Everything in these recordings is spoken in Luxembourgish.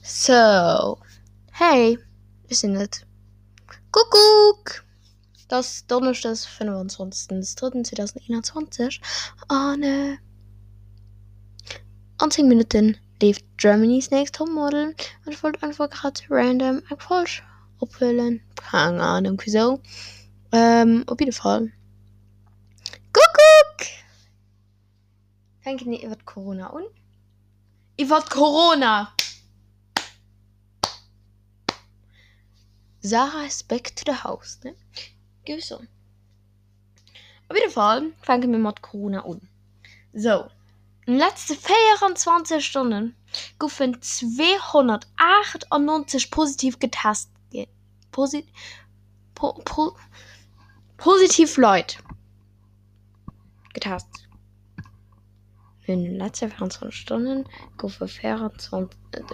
Sou, hey, ech sinn et. Kuckuck! Et ass Donneschdes 25.03.2021 an an 10 Minutten leeft Germany's Next Topmodel an ech wollt einfach grad random eng Folg ophuelen, keng Ahnung wisou, op jidde Fall Kuckuck! Fänke mir iwwert Corona un. Iwwert Corona! Sarah is back to the house, ne? Géif ech soen. Op jidde Fall fänke mir mat Corona un. Sou, an de letzte 24 Stonne goufen 298 positiv getest ginn. Posi po po positiv Leit. Getest. In den letzte 24 Stonnen goufe 24,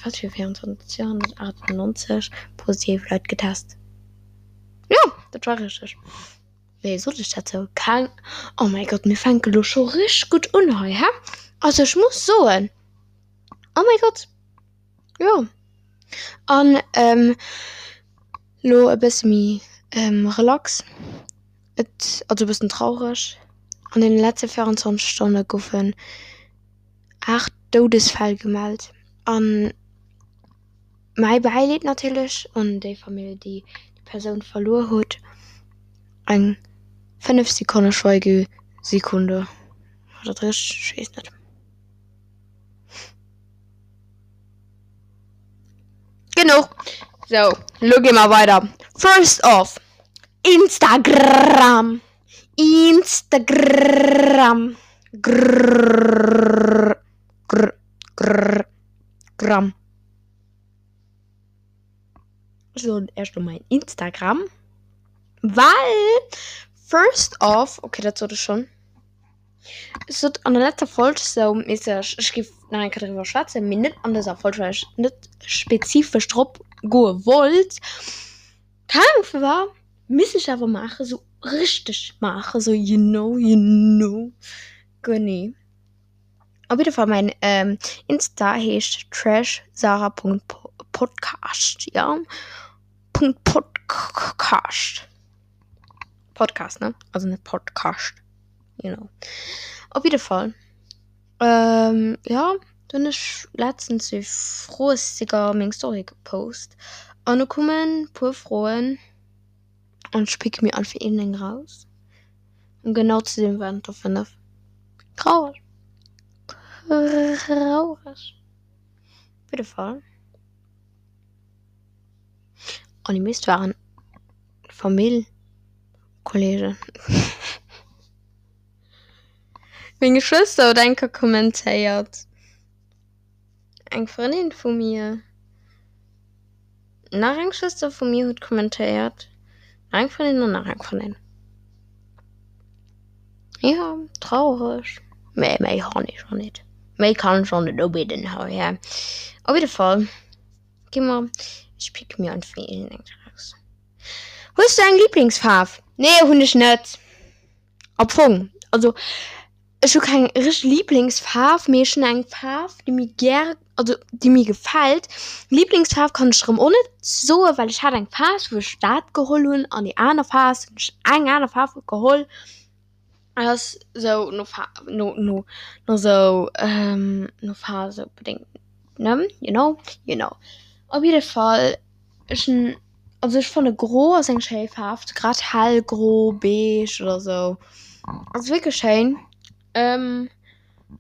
wat fir 24, 298 positiv Leit getest. Jo, dat war richteg. Nee, sot ech dat sou? Keng, oh mäi Gott, mir fänke lo scho richteg gutt un hei, hä? Also ech muss soen, oh mäi Gott, jo. An lo e bësse méi relax. Et also e bëssen traureg, an den letze 24 Stonne goufen 8 Doudesfäll gemellt. An mäi Bäileed natierlech un déi Famill déi déi Persoun verluer huet. Eng 5 Sekonne Schweigesekunde, war dat richteg? Ech weess net. Genuch! Sou, lo gi mer weider. First off, Instagram! Instagram! Grrrr grr grrr gram. Ech soen Iech lo mäin Instagram, well first off, okay dat sot ech schonn, ech sot an der letzter Folg sou mässeg, ech géif nach eng Kéier driwwer schwätzen, mee net an dëser Folg, well ech net spezifesch drop goe wollt. Keng Ahnung firwat, misst ech awer maachen, sou richteg maachen, sou you know, you know, genee. Op jidde Fall mäin Insta heescht trashsarah.podcast, jo, Punkt Podcast, Podcast ne, also net Podkascht, you know. Op jidde Fall. Jo, do hunn ech letztens e Froesticker a meng Story gepost an do koumen puer Froen an ech picke mir einfach iergendeng raus. Ëm genau ze sinn waren et der 5. Traureg, traureg op jidde Fall. An déi meescht waren Famill, Kollegen. Meng Schwëster huet eng Kéier kommentéiert, eng Frëndin vu mir, nach eng Schwëster vu mir huet kommentéiert, nach eng Frëndin an nach eng Frëndin. Jo, traureg, mä méi han ech och net, méi kann ech och net ubidden hei. Op jidde Fall gi mer, ech picke mir einfach iergendeng raus. Hues du eng Liblingsfaarf? Nee, hunn ech net. Am Fong, also ech hu keng richteg Liblingsfaarf, mee ech hunn eng Faarf, déi mir gär, also déi mir gefält. Liblingsfaarf kann ech erëm och net soen, well ech hat eng Phas, wou ech dat geholl hunn an déi aner Phas hunn ech eng aner Faarf geholl. Et ass esou no Fa no no no esou no Phase bedéngt, ne, you know, you know. Op jidde Fall, ech hunn. Also ech fanne gro ass eng schéi Faarf, grad hellgro, beige oder sou ass wierklech schéin. An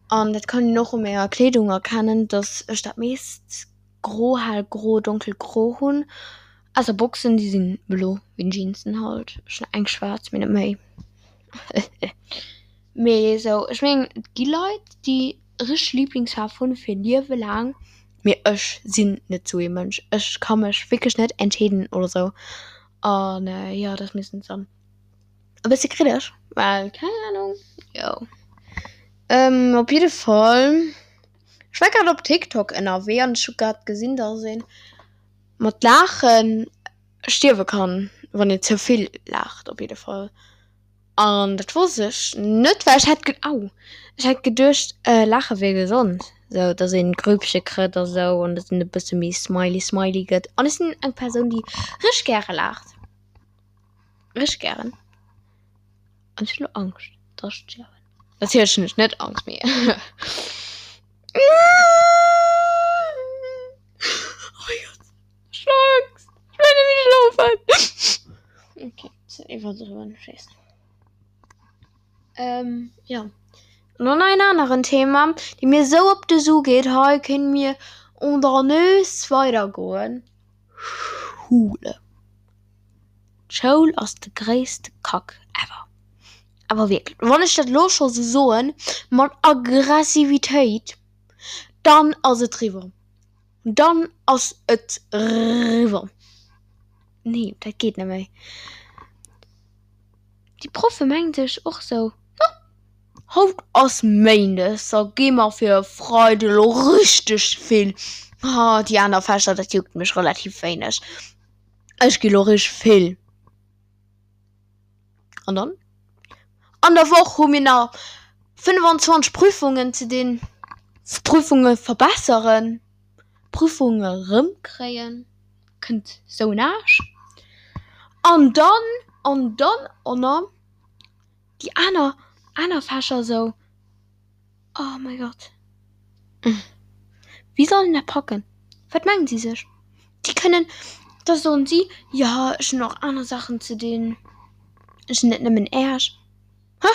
dat kann een och u menger Kleedung erkennen, dass ech dat meescht gro, hellgro, donkelgro hunn. Ausser Boxen, déi sinn blo wéi Jeansen halt. Ech hunn eng schwaarz, mee net méi. Mee esou, ech mengen et gi Leit déi richteg Liblingsfaarf hunn fir Liewe laang, mee ech sinn net sou ee Mënsch, ech ka mech wierklech net entscheeden oder sou an jo dat ass meeschtens dann e bësse kritesch, well keng Ahnung, jo. Op jidde Fall, ech war grad op TikTok ënnerwee an ech hu grad gesinn dass ee mat laachen stierwe kann, wann een ze vill laacht op jidde Fall. An dat wosst ech net, well ech hat, au, ech hat geduecht, laache wier gesond. Sou dass een Grüppche krëtt a sou an dass een e bësse méi smiley smiley gëtt. An ech sinn eng Persoun déi richteg gäre laacht. Richteg gären. An ech hunn elo Angscht dass ech stierwen. Natierlech hunn ech net Angscht mee Oh mein Gott ech hunn Angscht. Ech wëll net méi schlofen. Okay, ze iwwerdriwwen, ech weess. Ähm, ja. An dann en aneren Thema, dee mir esou op de Su geet, hei kënne mir on der Nös weidergoen, Schule. D'Schoul ass de gréisste Kack ever. Awer wierklech, wann ech dat elo scho sou soen, mat Aggressivitéit, dann ass et riwwer. Dann ass et riwwer. Nee, dat geet net méi. Déi Proffe mengen sech och sou, No, haut ass Méindes, da gi mer fir e Freide lo richteg vill. Ha, déi aner Fächer, dat juckt mech relativ wéineg. Ech gi lo richteg vill. An dann? An der Woch hu mir nach 25 Prüfungen ze dinn, Prüfunge verbesseren. Prüfunge rëmkréien, kënnt sou en Aarsch. An dann, an dann och déi aner, aner Fächer sou, oh mäi Gott, wéi soll een dat packen? Wat mengen si sech? Déi kënnen, da soen si, jo ech hunn och aner Saachen ze dinn, ech hunn net nëmmen Äerch. Hä?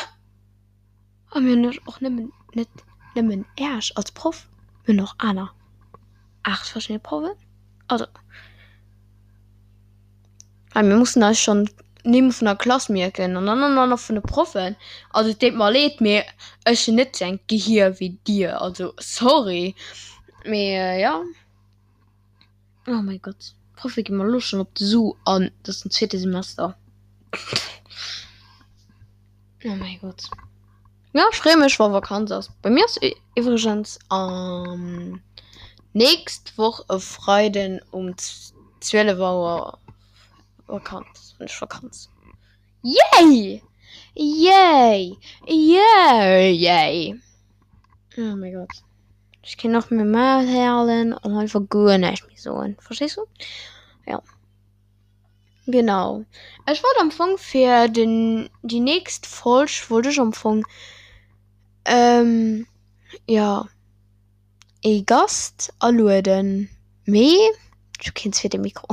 A mir hunn och nëmmen, net nëmmen Äerch als Proff, mir hunn och aner 8 verschidde Proffen. Also hei mir mussen eis schonn d'Nimm vun der Klass mierken an dann och nach vun de Proffen. Also et deet mer leed, mee ech hunn net sou engt Gehier wéi dir, also sorry, mee jo. Oh mäi Gott, d'Proffe gi mer elo schonn op de Su an et ass den zweete Semester. Oh mäi Gott. Jo, ech freeë mech wa Vakanz ass. Bei mir ass iwwregens am nächst Woch e Freiden um 12 Auer Vakanz, hunn ech Vakanz. Yay! Yay! Yay! Yay! Oh mäi Gott. Ech kéint och méi Maul halen an einfach guer näischt méi soen. Verstees du? Jo. Genau. Ech wollt am Fong fir den, déi nächst Folg wollt ech am Fong, jo, ee Gast alueden, mee ech hu keen zweete Mikro.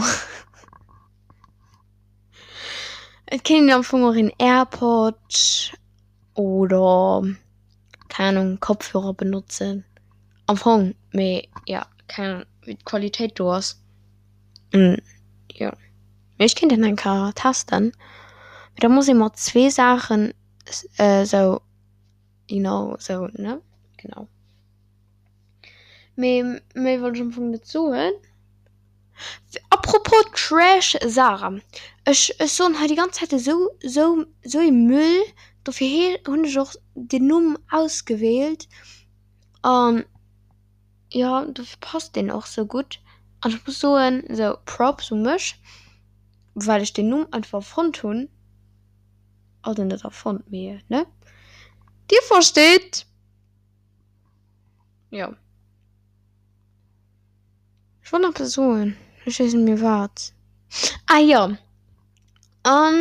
Et kéint een am Fong och een Airpod oder keng Ahnung Kopfhörer benotzen am Fong, mee jo keng Ahnung wéi d'Qualitéit do ass. Jo mee ech kéint dat eng Kéier testen, mee da muss ee mat zwee Saachen esou you know esou ne genau. Mee méi wollt ech am Fong net soen. Apropos Trash Sarah, ech ech soen hei déi ganz Zäit esou esou esou ee Müll, dofir he hunn ech och den Numm ausgewielt an jo dofir passt deen och sou gutt an ech muss soen esou Props u mech well ech den Numm einfach erfonnt hunn, also net erfonnt mee ne dir versteet jo. Ech wollt nach eppes soen, ech weess net méi wat. Ah jo, an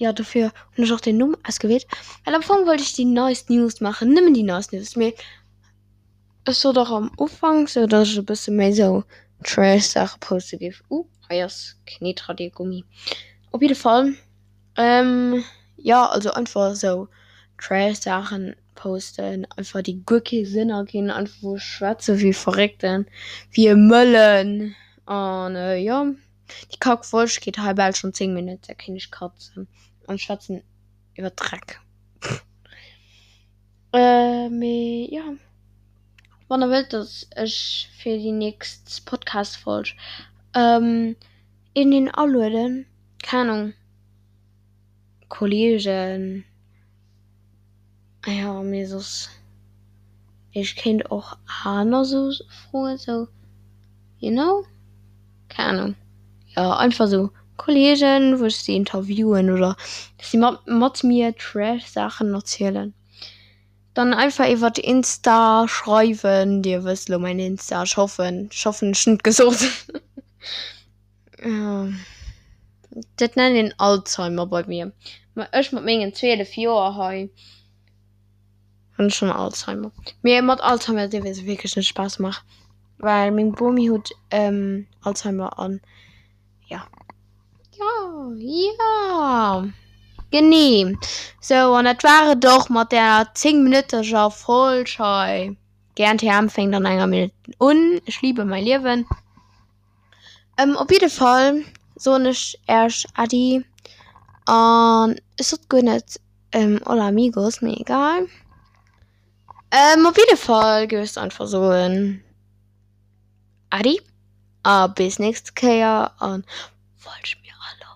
jo dofir hunn ech och den Numm ausgewielt, well am Fong wollt ech déi neist News maachen, nëmmen déi neist News, mee ech sot och am Ufank sou, datt ech e bësse méi sou Trash Saache poste géif. Uh, hei ass Kneetradiergummi. Op jidde Fall. Jo also einfach esou Trash Saachen posten, einfach déi guer kee Sënn erginn, einfach wou ech schwätze wéi e Verréckten, wéi e Mëllen an jo déi Kack Folg geet hei bal schonn 10 Minutten, da kéint ech katzen an ech schwätzen iwwer Dreck. Mee jo wann der wëllt dass ech fir déi nächst Podcast Folg iergendeen alueden. Keng Ahnung, Kollegen, jo mee soss, ech kéint och aner sou froen sou, you know, keng Ahnung, jo einfach sou Kollegen wou ech si interviewen oder si mat mir Trash Saachen erzielen. Dann einfach iwwert Insta schreiwen. Dir wësst elo mäin Insta. Ech hoffen, ech hoffen ech hunn et gesot. Dat nennt een Alzheimer bei mir. Ma ech mat mengen 12 Joer hei hunn schonn Alzheimer. Mee mat Alzheimer dierf ee sech wierklech net Spaass maachen, well meng Bomi huet Alzheimer an ja. Jo, jo, genee. Sou, an dat war et och mat där 10 minütteger Folg hei. GNTM fänkt an enger Minutt un. Ich liebe mein Leben. Op jidde Fall soen ech Äech Äddi an ech sot guer net Hola amigos, mee egal. Op jidde Fall géif ech einfach soen Äddi a bis nächst Kéier an folgt mir alleguer.